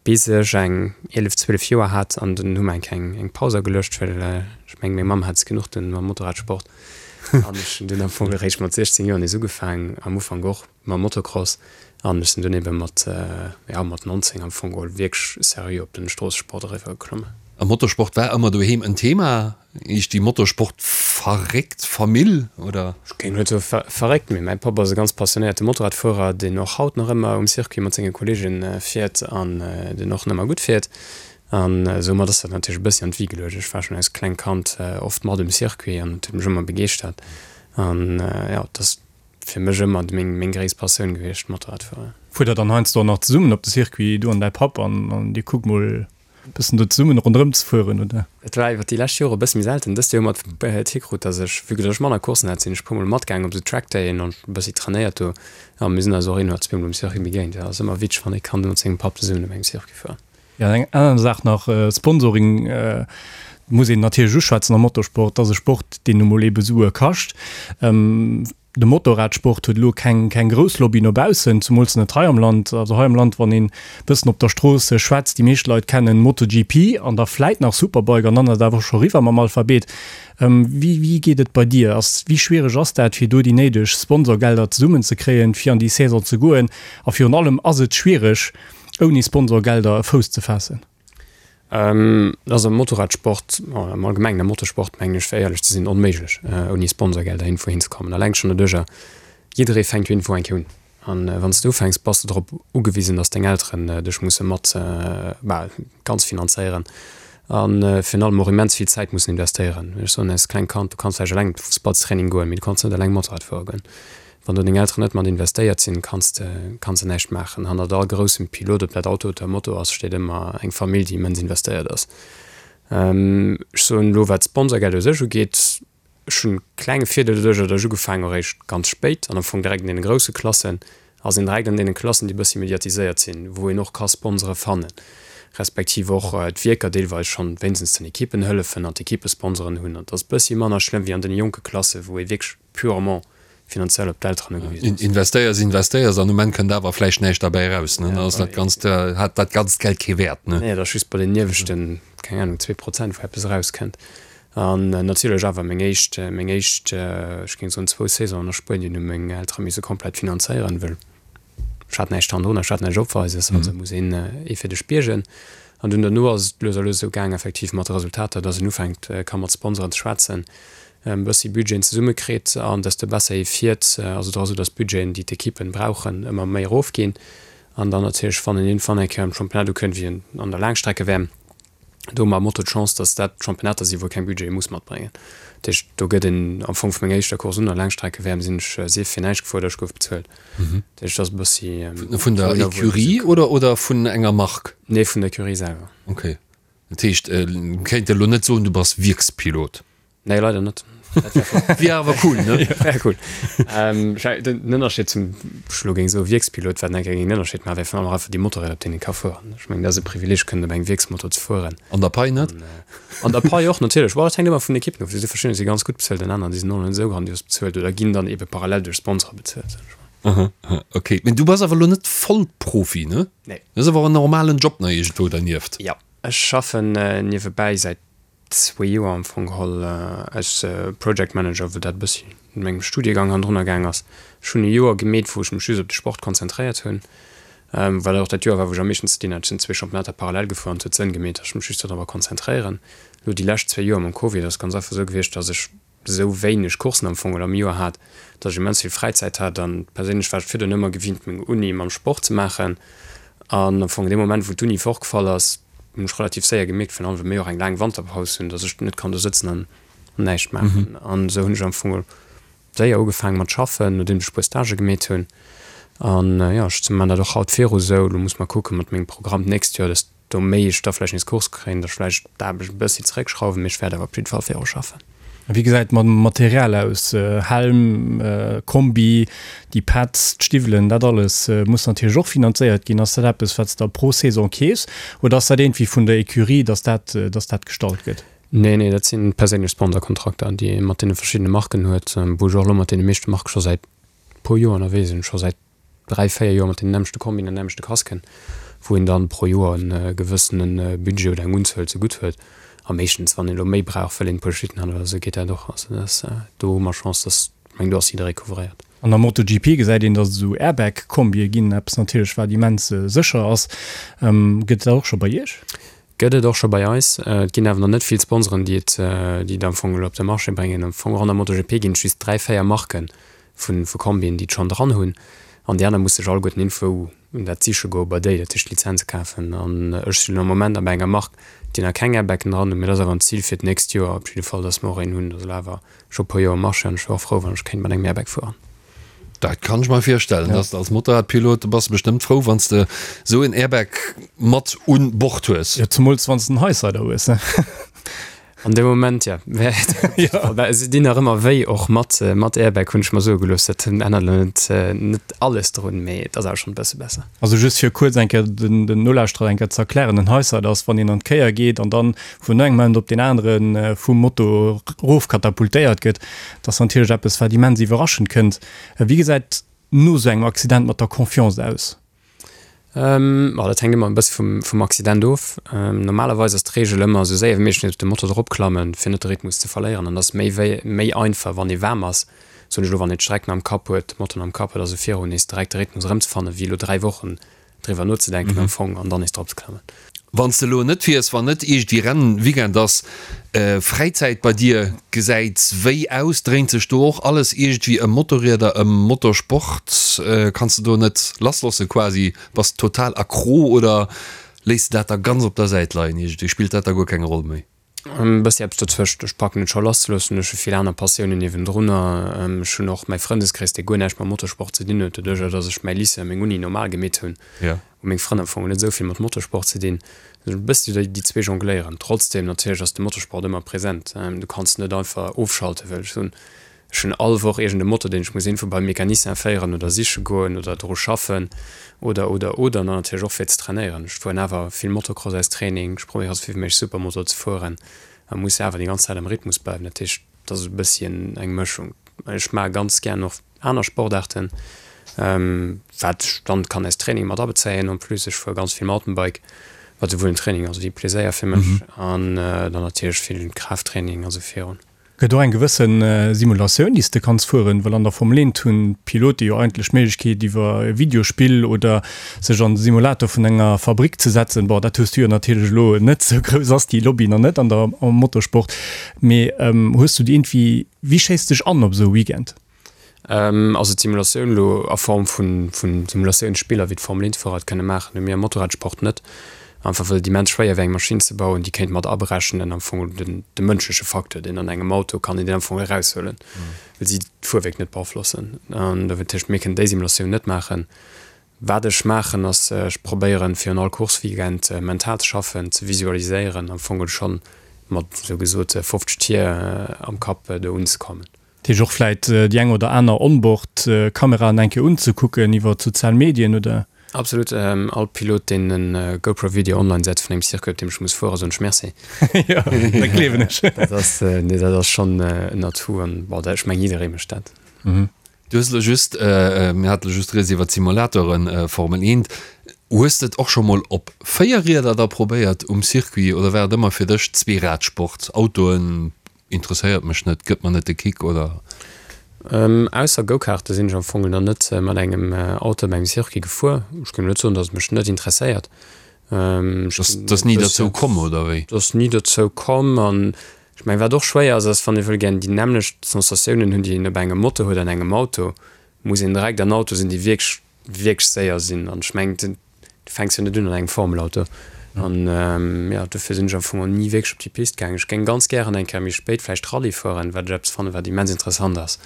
bis ech eng 11, 12 Joer hat an dunn hu mer eng kleng eng Paus ageluecht, well ech mengen, meng Mamm hat es genuch dunn mam Motorradsport an ech hunn dunn am Fong eréischt mat 16 Joer nees ugefaangen, am Ufank och mam Motocross an ech sinn dunn ebe mat, jo, mat 19 am Fong geholl wierklech seriö op den Stroossesport eriwwer geklommen. A Motorsport war ëmmer doheem en Thema? Eech déi Motorsport verréckt Famill oder? Ech géing net soe verréckt, mee mäi Papp ass e ganz passionéierte Motorradfuerer, deen och haut nach ëmmer um Circuit mat senge Kolleege fiert an deen och nach ëmmer gutt fiert. An soumat ass dat natierlech e bëssi an d'Wi geluecht. Ech war schonn als klengt Kand oft mat um Circuit an et huet mech ëmmer begeeschtert. An jo, et ass fir mech ëmmer meng meng gréisst Passioun gewiescht, Motorradfueren. Fuert der dann heiansdo och nach zesummen op de Circuit, du an däi Papp, an dir kuckt mol Bëssen do zesummen ronderëm ze fueren, oder? Et war iwwer déi lescht Jore e bësse méi selten. Dëst Joer hu mer et hikrut, dass ech, vue que dass ech manner Courssen hat, sinn ech e puer mol matgaangen op esou Trackdayen an e bëssi trainéiert do. A mir sinn eis och een oder zweemol um Circuit begéint. Jo, ass ëmmer witzeg, wann ee kann mat sengem Papp zesummen op engem Circuit fueren. Jo, an eng aner Saach nach, Sponsoring muss een natierlech uschwätzen am Motorsport. Dat ass e Sport, deen nu mol eebe Sue kascht. De Motorradsport huet elo keng keng grouss Lobby no baussen, zumools net hei am Land. Also hei am Land, wann een bëssen op der Strooss schwätzt, déi meescht Leit kennen MotoGP an da vläit nach Superbike an dann ass et awer och scho eriwwer mam Alphabet. Wéi wéi geet et bei dir? Ass wéi schwiereg ass dat fir do déi néideg Sponsorgelder zesummen ze kréien, fir an déi Saison ze goen? A virun allem, ass et schwiereg ouni Sponsorgelder e Fouss ze faassen? Et ass am Motorradsport, am Allgemengen am Motorsport, mengen ech, fir éierlech ze sinn, onméiglech, ouni Sponsorgelder iergendwou hinzekommen. Alleng schonn doduercher, jidderee fänkt jo iergendwou eng Kéier un. An wann s de ufänks, bass de drop ugewisen, datt deng Elteren dech musse mat, bah, ganz finanzéieren a virun allem och immens vill Zäit mussen investéieren. Ech soen, als klengt Kand, du kanns vläicht eleng op de Fussballstraining goen, mee du kanns net eleng Motorrad fuere goen. Wann do deng Elteren net mat investéiert sinn, kanns de kanns de näischt maachen. Hannert all groussem Pilot, ob dat Auto oder Moto ass, steet ëmmer eng Famill, déi immens investéiert ass. Ech soen elo, wat d'Sponsorgeld u sech ugeet, ech hunn e klenge Virdeel doduercher, datt ech ugefaangen hu réischt ganz spéit an am Fong direkt an deene grousse Klassen, ass een direkt an deene Klassen, déi e bëssi mediatiséiert sinn, wou een och ka Sponsore fannen, respektiv och d'Wierker deelweis schonn wéinstens den Ekippen hëllefen an d'Ekippesponsoren hunn. An et ass e bëssi manner schlëmm wéi an deene jonke Klassen, wou ee wierklech purement finanziell op d'Elteren ugewisen ass. Investéiers, investéiers an um Enn kënnt awer vläicht näischt derbäi eraus, ne? Dann ass dat ganzt, hat dat ganzt Geld kee Wäert, ne? Nee, et ass just bei den ieweschten, keng Ahnung, 2% wou eppes erauskënnt. An natierlech awer meng éischt, meng éischt, ech géing soen zwou Saisonen a Spuenien hu meng Eltere misse komplett finanzéieren, well ech hat näischt hannendrun, ech hat näischt Opweises, also muss een ee fir dech biergen. An dunn derno ass et lues a lues esou gaang, effektiv mat de Resultater, dass een ufänkt ka mat Sponsoren ze schwätzen, e bëssi Budgeten zesumme kritt an desto besser ee fiert, ass et och esou, dass d'Budgeten, déi d'Ekippen brauchen, ëmmer méi erofginn. An dann natierlech, wann een iergendwann eng Kéier am Championnat ukënnt, wéi an der Laangstrecke-WM, Do hu mer am Moto d'Chance, dass dat Championnater sinn, wou ee keng Budgete muss matbréngen. Dat heescht, do gëtt een am Fong vu menger éischter Course un, der Laangstrecke-WM, sinn ech sief fir näischt gefuer oder ech gouf bezuelt. Dat heescht, dat ass e bëssi. Vun der Ecurie oder, oder vun enger Mark? Nee, vun der Ecurie selwer. Okay. Dat heescht, kéint elo net soen, du bass Wierkspilot? Nee, leider net. Wier awer cool, ne? Wär cool. Ähm, den Ënnerscheed zum, ech elo géing soe Wierkspilot, wat enke géing den Ënnerscheed maachen, wär virun allem och einfach déi Motorräder, op deenen ee ka fueren. Ech mengen, dat ass e Privileeg, kënnen op engem Wierksmotor ze fueren. An der Pai net? An der Pai och, natierlech. Bon, dat hänkt ëmmer vun den Ekippen of. Do si verschiddener, déi si ganz gutt bezuelt an aner, déi sinn och net esou grandios bezuelt oder ginn dann ebe parallel duerch Sponsore bezuelt, sot ech mol. Aha, aha, okay. Mee du bass awer elo net Vollprofi, ne? Nee. Dat ass awer en normalen Job nach iergendwou dernieft. Jo, ech schaffen niewebäi säit zwee Joer am Fong geholl als Project Manager, wou dat e bëssi mat mengem Studiegang hannendrunner gaang ass. Ech hunn e Joer gemeet, wou ech mech just op de Sport konzentréiert hunn, well dat och dat Joer war, wou ech am meeschten ze dinn hat. Ech sinn zwee Championnater parallel gefuer an et huet Sënn gemeet, datt ech mech just dodrobber konzentréieren. Elo déi lescht zwee Joer mam Covid ass et ganz einfach esou gewiescht, datt ech esou wéineg Coursen am Fong oder am Joer hat, dass ech immens vill Fräizäit hat an perséinlech war ech virdrun ëmmer gewinnt meng Uni mam Sport ze maachen an am Fong dee Moment wou d'Uni fortgefall ass, hunn ech relativ séier gemierkt, virun allem well mir och eng laang Wanterpaus hunn, dass ech net kann do sëtzen an näischt maachen an esou hunn ech am Fong séier ugefaange mat schaffen, nodeems ech e puer Stagë gemeet hunn an jo ech man dat och haut viru sou. Elo muss mer kucke mat mengem Programm d'nächst Joer, dass Do méi ech da vläicht nees Course kréien, da vläicht d'Aarbecht e bëssi zeréckschrauwen, mee ech wäert awer op jidde Fall viru schaffen. A wéi gesäit et mam Material aus? Helm, Kombi, déi Pads, d'Stiwwelen, dat alles muss natierlech och finanzéiert ginn. Ass dat eppes, wat s de pro Saison keefs oder ass dat iergendwéi vun der Ecurie, dass dat, dass dat gestallt gëtt? Nee, nee, dat si perséinlech Sponsorkontrakter, déi ee mat deene verschiddene Marken huet, wou ech och elo mat deene meeschte Marke scho säit. puer Joer ënnerwee sinn, scho säit 3, 4 Joer mat deenen nämmlechte Kombien an nämmlechte Casquen, wou een dann pro Joer e gewëssene Budget oder eng Unzuel zegutt huet. A meeschtens, wann een elo méi brauch, wëll een e puer Schlitten hat oder esou, geet dat och. Also dat ass, do hu mer Chance, dass, ech mengen, do ass jidderee couvréiert. An der MotoGP gesäit een, dass et esou Airbag-Kombie ginn, eppes natierlech, wat immens sécher ass. Gëtt et dat och scho bei Iech? Gëtt et och scho bei eis. Et ginn awer nach net vill Sponsoren, déi et, déi et am Fong elo op de Marché bréngen. Am Fong och an der MotoGP ginn et just 3, 4 Marke vu vu Kombien, déi et schonn dran hunn. An déi aner musse sech alleguerten iergendwou dat siche goe bei déi, dat heescht Lizenze kafen. An ech sinn am Moment nach bei enger Mark, déi nach keng Airbagen dran hunn. Mee dat ass awer en Zil fir d'nächst Joer op jidde Fall, datt mer och een hunn. Dat ass elo awer scho e puer Joer am Marché an ech wier och frou, wann ech kéint mat engem Airbag fueren. Dat kann ech mer virstellen, dass de als Motorradpilot, do bass de bestëmmt frou, wann s de esou en Airbag mat un Bord hues. Jo, zemools wann s de en Highsider hues, ne? An deem Moment, ja. Well se dinn nach ëmmer wéi, och mat, mat Airbag, hunn ech mer soe gelooss. Dat ännert elo net, net alles drun, mee et ass awer schonn e bësse besser. Also just fir kuerz eng Kéier den, den Nolauschterer eng Kéier ze erklären, En Highsider ass, wann een an d'Kéier geet an dann vun engem Moment op deen anere vum Moto erofkatapultéiert gëtt. Dat ass natierlech eppes, wat immens iwwerraschend kënnt. Wéi gesäit no esou engem Accident mat der Confiance aus? Ma dat hänkt ëmmer e bësse vum, vum Accident of. Normalerweis ass d'Reegel ëmmer, esou séier wéi méiglech nees op de Moto eropklammen, fir net de Rhythmus ze verléieren. An dat ass méi wéi, méi einfach, wann ee waarm ass, soen ech elo, wann een d'Streck nach am Kapp huet, de Moto nach am Kapp huet, also viru nees direkt de Rhythmus erëmzefannen, wéi elo 3 Wochen driwwer nozedenken am Fong an dann nees drop ze klammen. Wann s de elo net fiers, wann net iergendwéi Rennweekend ass, Fräizäit bei dir gesäit wéi aus? Dréint sech do och alles iergendwéi ëm Motorrieder, ëm Motorsport? Kanns de do net lassloosse quasi? Bass total accro oder léiss de dat da ganz op der Säit leien iergendwéi? Spillt dat da guer keng Roll méi? E bëssi eppes dozwëscht. Ech packen et scho lasszeloossen. Ech hu vill aner Passiounen niewendrunner. Ech hunn och mäi Frëndeskrees, dee guer näischt mam Motorsport ze dinn huet. Doduercher, datt ech mäi Lycée a meng Uni normal gemeet hunn, hu meng Frënn am Fong net esou vill mat Motorsport ze dinn. E bëssi déi zwee jongléieren. Trotzdeem natierlech ass de Motorsport ëmmer present. Du kanns net einfach ofschalten, wëll ech soen, Ech hunn all Woch iergend e Moto, deen ech muss iergendwou beim Mecanicien féieren oder siche goen oder dru schaffen oder, oder, oder. An dann natierlech och fir ze trainéieren. Ech fueren awer vill Motocross als Training. Ech probéiere sou vill wéi méiglech Supermoto ze fueren a muss awer déi ganz Zäit am Rhythmus bleiwen. Dat heescht, et ass e bësschen eng Mëschung. Ech maache ganz gären och aner Sportaarten, wat ech dann kann als Training mat abezéien. En plus, ech fuere ganz vill Mountainbike, wat souwuel en Training ass wéi Pleséier fir mech. An dann natierlech vill Kraafttraining a sou virun. Gëtt och eng gewësse Simulatioun, déi s de kanns fueren? Well an der Formel 1 hunn d'Pilote jo eigentlech d'Méiglechkeet iwwer e Videospill oder sech an de Simulator vun enger Fabrick ze setzen. Bon, dat hues du jo natierlech elo net, esou grouss ass déi Lobby nach net an der am Motorsport. Mee hues du déi iergendwéi, wéi schéiss de dech an op esou e Weekend? Also d'Simulatioun elo a Form vu Simulatiounsspiller wéi d'Formel 1 Fuerer et kënne maachen, hu mir am Motorradsport net. Einfach well et immens schwéier wär eng Maschinn ze bauen, déi kéint mat aberechnen am Fong den de mënschleche Facteur, deen an engem Auto kann een deen am Fong eraushuelen, well si d'Fuerwierk net beaflossen. An dat heescht, mir kënnen déi Simulatioun net maachen. Wat ech maachen ass, ech probéieren virun all Course-Weekend mental ze schaffen, ze visualiséieren, am Fong schonn mat esou gesot 50 Tier am Kapp do unzekommen. Dat heescht och vläit déi eng oder aner Onboard-Kameraen eng Kéier unzekucken iwwer d'sozial Medien, oder? Absolut. All Pilot, deen e GoPro-Video online setzt vun engem Circuit, op deem ech muss fueren, soen ech Merci. Jo, dat gleewen ech. Dat ass, nee, dat ass schonn en Atout an, bon, ech mengen, jidderee mécht dat. Du hues elo just, mir hate elo just rieds iwwer d'Simulatoren, Formel 1. Hues de et och scho mol op 4 Rieder da probéiert um Circuit oder war et ëmmer fir dech Zweeradsport, Autoen, Interesséiert mech net, gëtt mer net de Kick, oder? Ausser Go-Karte sinn ech am Fong nach net mat engem Auto op engem Circuit gefuer. Ech géing net soen, datt et mech net interesséiert. Et ass ni derzou komm, oder wéi? Et ass ni derzou komm. An ech mengen, wat och schwéier ass, ass, wann ee wëll gären déi nämmlecht Sensatiounen hunn, déi een op engem Moto huet an engem Auto, muss een direkt an Auto sinn, déi wierklech wierklech séier sinn an ech mengen du fänks jo net un an engem Formelauto an jo dofir sinn ech am Fong och ni wierklech op déi Pist gaangen. Ech géing ganz gären eng Kéier méi spéit vläicht Rallye fueren, wat ech eppes fannen wat immens interessant ass,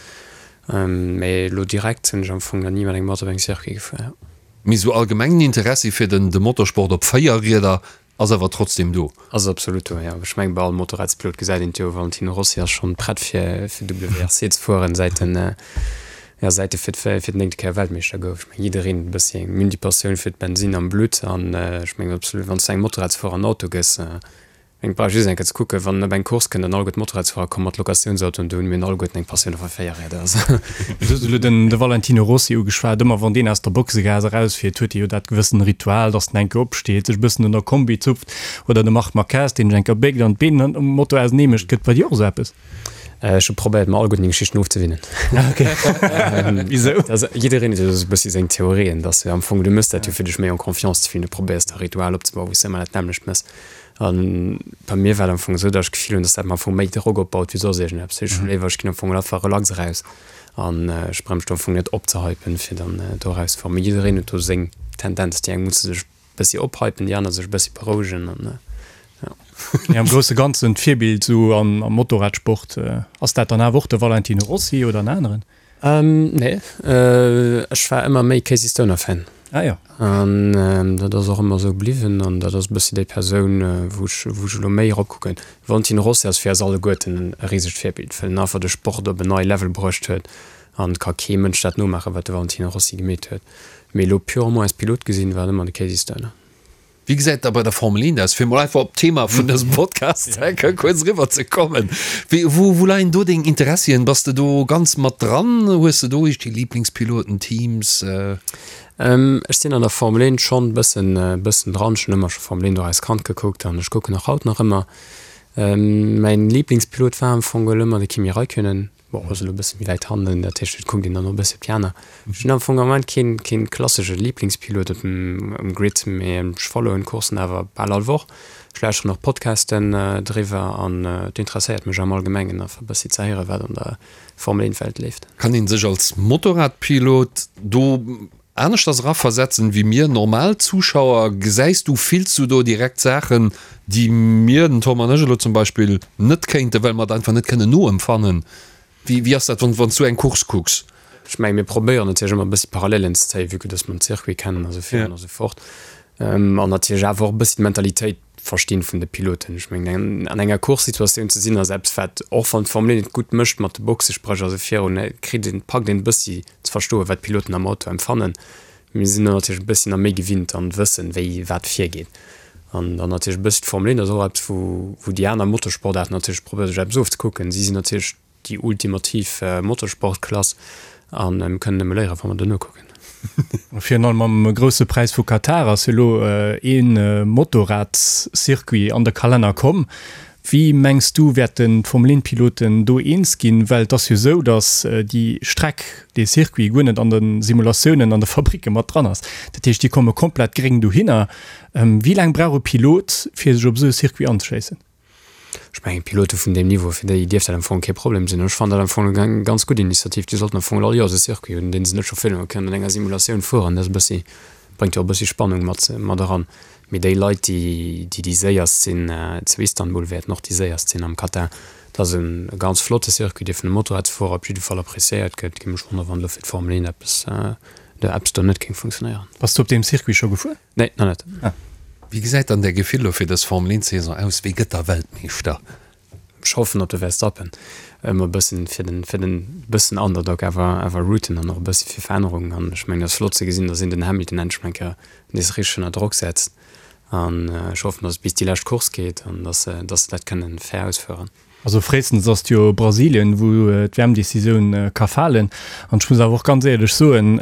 mee elo direkt sinn ech am Fong nach ni mat engem Auto op engem Circuit gefuer. Mee sou allgemengen Interessi fir den de Motorsport op 4 Rieder Ass awer trotzdem do. Ass absolut do, jo. Ech mengen bei all Motorradspilot gesäit een et jo, Valentino Rossi ass schonn prett fir fir WRC ze fueren säit en jo säit e fir fir d'néngte Kéier Weltmeeschter gouf. Ech mengen jiddereen huet e bëssi eng Mini Passioun fir d'Bensinn am Blutt an ech mengen absolut wann s du engem Motorradsfuerer en Auto gëss. Eng brauch just eng Kéier ze kucken, wann en op eng Course kënnt an alleguer d'Motorradsfuerer komme mat Locatiounsautoen, do hunn mir alleguerten eng Passioun a Véierräder. Also. Du hues elo den de Valentino Rossi ugeschwat. Ëmmer wann deen aus der Boxegaass erausfiert, huet e jo dat gewëssen Ritual, datt en eng Kéier opsteet, sech e bëssen un der Kombi zupft. Oder de Marc Marquez, deen sech eng Kéier béckt an d'Been um Moto ausenee mécht. Gëtt bei dir och esou eppes? Ech hu probéiert, mer alleguerten déi Geschichten ofzewinnen. Okay. Wisou? Also, jiddereen huet jo esou e bëssi seng Theorien, dass du am Fong, du méchs dat jo fir dech méi en confiance ze fillen, du probéiers da Ritual opzebauen, wou s de ëmmer dat nämmlecht méchs. An bei mir war et am Fong esou, datt ech d'Gefill hunn, datt dat mer am Fong méi Drock opbaut wéi soss iergendeppes. Ech hu léiwer, ech ginn am Fong einfach relax eraus an ech brauch mech do am Fong net opzehypen, fir dann do erauszefueren. Mee jiddereen huet do seng Tendenz. Déi eng musse sech e bëssi ophypen, déi aner sech e bëssi berouegen an jo. Mee am grousse Ganzen d'Virbild esou am Motorradsport, ass dat dann awer och de Valentino Rossi oder en aneren? Nee, ech war ëmmer méi Casey Stoner Fan. Ah jo. An dat ass och ëmmer esou bliwwen an dat ass e bëssi déi Persoun, wou ech, wou ech elo méi eropkucken. Valentino Rossi ass fir eis alleguerten e risegt Virbild, well en einfach de Sport op en nei Level bruecht huet an et ka kee Mënsch dat nomaachen, wat de Valentino Rossi gemeet huet. Mee elo purement als Pilot gesinn, war et ëmmer de Casey Stoner. Wéi gesäit et da bei der Formel 1 aus? Fir mol einfach op d'Thema vun dësem Podcast enke kuerz eriwwer ze kommen. Wéi, wou, wou leien do deng Interessien? Bass de do ganz mat dran? Hues de do iergendwéi Liblingspiloten, Teams? Ech sinn an der Formel 1 schonn bëssen, bëssen dran. Ech hunn ëmmer scho Formel 1 och als Kand gekuckt an ech kucken och haut nach ëmmer. Mäin Liblingspilot war am Fong geholl ëmmer de Kimi Räikkönen. Bon, ass elo e bësse méi wäit hannen, dat heescht, et kuckt een dann och e bësse op déi aner. Ech hunn am Fong am Moment keen, keen klassesche Liblingspilot op dem, um Grid, mee ech followen d'Coursen awer bal all Woch. Ech lauschteren och Podcasten driwwer an et interesséiert mech am Allgemengen einfach e bëssi ze héieren, wat an der Formel 1 Welt leeft. Kann een sech als Motorradpilot do aneschters eraversetzen wéi mir normal Zuschauer? Gesäis du, fills du do direkt Saachen, déi mir, den Tom an ech elo zum Beispill, net kéinten, well mer et einfach net kënnen noempfannen? Wéi, wéi ass dat, wann, wann s du eng Course kucks? Ech mengen, mir probéieren natierlech ëmmer e bëssi Parallelen ze zéien, vue que dass mer den Circuit kennen a sou virun a sou fort. An natierlech awer och e bëssi d'Mentalitéit verstinn vun de Piloten. Ech mengen, an enger Course-Situatioun ze sinn ass eppes, wat, och wann d'Formel 1 et gutt mécht mat de Boxespréch a sou virun, kritt een, packt een e bëssi ze verstoen, wat d'Piloten am Auto empfannen. Mir sinn do natierlech e bëssi nach méi gewinnt an wëssen, wéi wat virgeet. An dann natierlech e bëssi d'Formel 1 ass och eppes, wou, wou déi aner Motorsportaarten natierlech probéiere sech eppes ofzekucken. Si sinn natierlech déi ultimativ Motorsportklass a mir kënnen nëmme léieren, wa mer do nokucken. Virun allem am Grousse Präis vu Katar ass jo elo ee Motorradscircuit an de Kalenner komm. Wéi mengs du wäerten d'Formel-1-Piloten do eens ginn? Well et ass jo esou, datt déi Streck, dee Circuit guer net an de Simulatiounen an de Fabricke mat dran ass. Dat heescht, déi komme komplett gréng dohinner. Wéi laang brauch e Pilot, fir sech op esou e Circuit anzeschéissen? Ech mengen, Pilote vun deem Niveau, fir déi dierft dat am Fong kee Problem sinn. Ech fannen dat am Fong eng ganz gutt Initiativ. Déi sollten am Fong all Joers e Circuit hunn, dee se net scho filme kënnen, an enger Simulatioun fueren. Dat ass e bëssi, bréngt jo och e bëssi Spannung mat, mat eran. Mee déi Leit, déi, déi déi séierst sinn zu Istanbul, wäerten och déi séierst sinn am Katar. Dat ass e ganz flotte Circuit, dee vun de Motorradsfuerer op jidde Fall appreciéiert gëtt. Et géing mech wonneren, wann elo fir d'Formel 1 eppes, eppes do net géing funktionéieren. Bass du op deem Circuit scho gefuer? Nee, nach net. Ah. Wéi gesäit dann däi Gefill elo fir dës Formel 1 Saison aus? Wie gëtt da Weltmeeschter? Ech hoffen op de Verstappen. Ëmmer e bëssen fir den, fir den bëssen Underdog awer, awer rooten an och e bëssi fir Verännerung. An ech mengen, et ass flott ze gesinn, datt een den Hamilton endlech mol eng Kéier nees richteg ënner Drock setzt. An ech hoffen, datt et bis déi lescht Course geet an datt se, datt se dat kënnen fair ausféieren. Also fréistens ass et jo Brasilien, wou d'WM-Decisioun ka falen. An ech muss awer och ganz éierlech soen,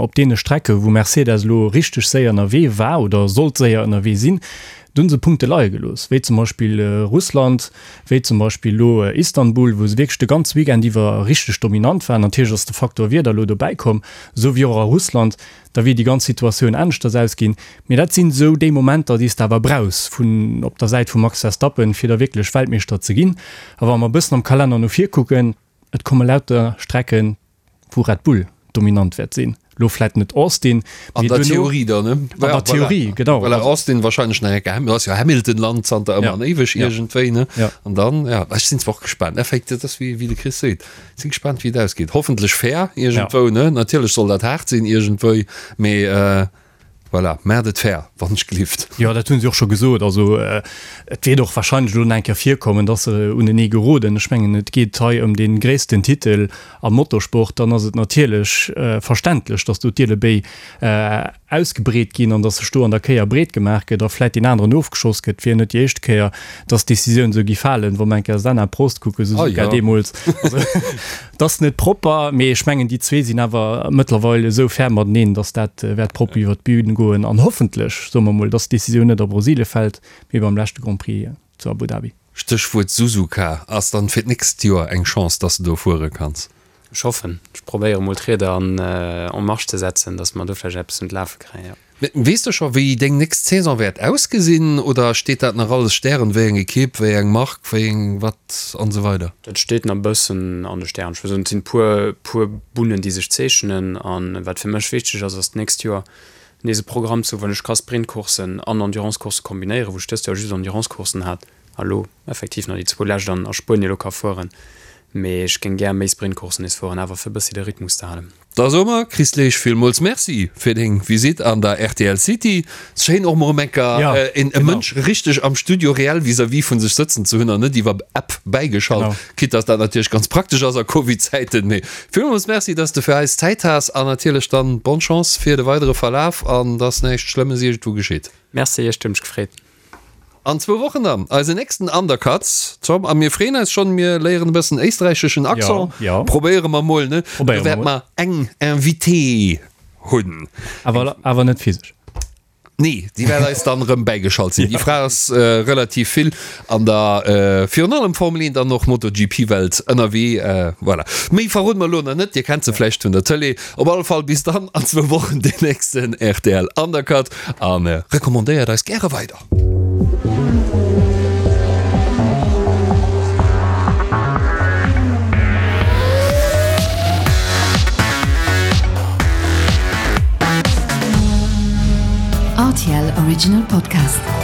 op deene Strecke wou Mercedes elo richteg séier ënnerwee war oder sollt séier ënnerwee sinn, do hu se Punkte leie gelooss, wéi zum Beispill Russland, wéi zum Beispill elo Istanbul, wou se wierklech de ganze Weekend iwwer richteg dominant waren. Natierlech ass de Faktor Wieder elo dobäi komm, esou wéi och a Russland. Da wier déi ganz Situatioun aneschters ausginn. Mee dat sinn esou déi Momenter, déi s de awer brauchs vun op der Säit vum Max Verstappen, fir da wierklech Weltmeeschter ze ginn. A wa mer e bëssen am Kalenner no vir kucken, et komme lauter Strecken, wou Red Bull dominant wäert sinn. Elo vläit net Austin, An mee der duerno. Theorie dann, ne? An der Theorie, genau. Voilà, Austin wahrscheinlech nach eng Kéier, dat ass jo Hamilton-Land zanter ëmmer an éiweg iergendwéi, ne? An dann, ja, ech sinn zwar och gespaant, effektiv, dat ass wéi de Chris seet. Sinn gespannt wéi et ausgeet. Hoffentlech fair iergendwou ne. Natierlech soll dat haart sinn iergendwéi, mee voilà, maacht et fair wann ech gelift. Jo, dat hunn si och scho gesot. Also et wäert och wahrscheinlech elo nach eng Kéier virkommen, datt se unenee geroden. Ech mengen, et geet hei ëm dee gréissten Titel am Motorsport. Dann ass et natierlech verständlech, datt do d'Ielebéi. ausgebreet ginn an dass sech do an der Kéier breet gemaach gëtt a vläit deen aneren ofgeschoss gëtt, wier net déi éischt Kéier, dass d'Decisioun esou gi falen, wa mer eng Kéier Senna, Prost kucken, Suzuka deemools. Also et ass net propper, mee ech mengen déi zwee sinn awer mëttlerweil esou fair mateneen, dass dat wäert propper iwwert d'Bün goen an hoffentlech, soe mer mol, dass d'Decisioun net a Brasilie fält, mee beim leschte Grand Prix zu Abu Dhabi. Stéchwuert Suzuka, ass dann fir d'nächst Joer eng Chance, dass de do fuere kanns? Ech hoffen. Ech probéiere mol d'Rieder an en marche ze setzen, dass mer do vläicht eppes un d'Lafe kréien, jo. Weess de scho wéi deng nächst Saison wäert ausgesinn oder steet dat nach alles Stären, wéi eng Ekipp, wéi eng Mark, wéi eng wat an esou weider? Dat steet nach e bëssen an de Stären. Ech wëll soen, et sinn puer, puer Bunnen déi sech zeechnen an wat fir mech wichteg ass, ass d'nächst Joer nees e Programm ze hu wou ech ka Sprintcourssen an Endurancecoursse kombinéieren, wou ech dëst Joer just Endurancecourssen hat a lo effektiv nach déi zwou lescht an a Spuenie lo ka fueren. Mee ech géing gär méi Sprintcourssen nees fueren, awer fir e bëssi de Rhythmus ze halen. Da soe mer, Chris Leesch, villmools Merci fir deng Visitt an der rtl City. Schéin och mol erëm eng Kéier e Mënsch richteg am Studio reell vis-à-vis vun sech sëtzen ze hunn an net iwwer App bäigeschalt. Quitte dass dat natierlech ganz praktesch ass a Covid-Zäiten. Mee villmools Merci, dass de fir eis Zäit has an natierlech dann bonne Chance fir de weidere Verlaf an dass näischt Schlëmmes iergendwou geschitt. Merci, ech hunn mech gefreet. An zwou Wochen dann eisen nächsten Undercuts, Tom, a mir freeën eis schonn. Mir léieren e bëssen éisträicheschen Accent, probéiere mer mol, ne? Do wäerte mer eng Invitée hunn. Awer, awer net physesch. Nee, déi wäert eis dann erëm bäigeschalt sinn. Déi Fra ass relativ vill an der virun allem Formel 1 an och MotoGP-Welt ënnerwee. Voilà. Méi verroden mer elo nach net, Dir kennt se vläicht vun der Tëlee. Op alle Fall bis dann an zwou Wochen, deen nächsten rtl Undercut a recommandéiert eis gäre weider. RTL Original Podcast.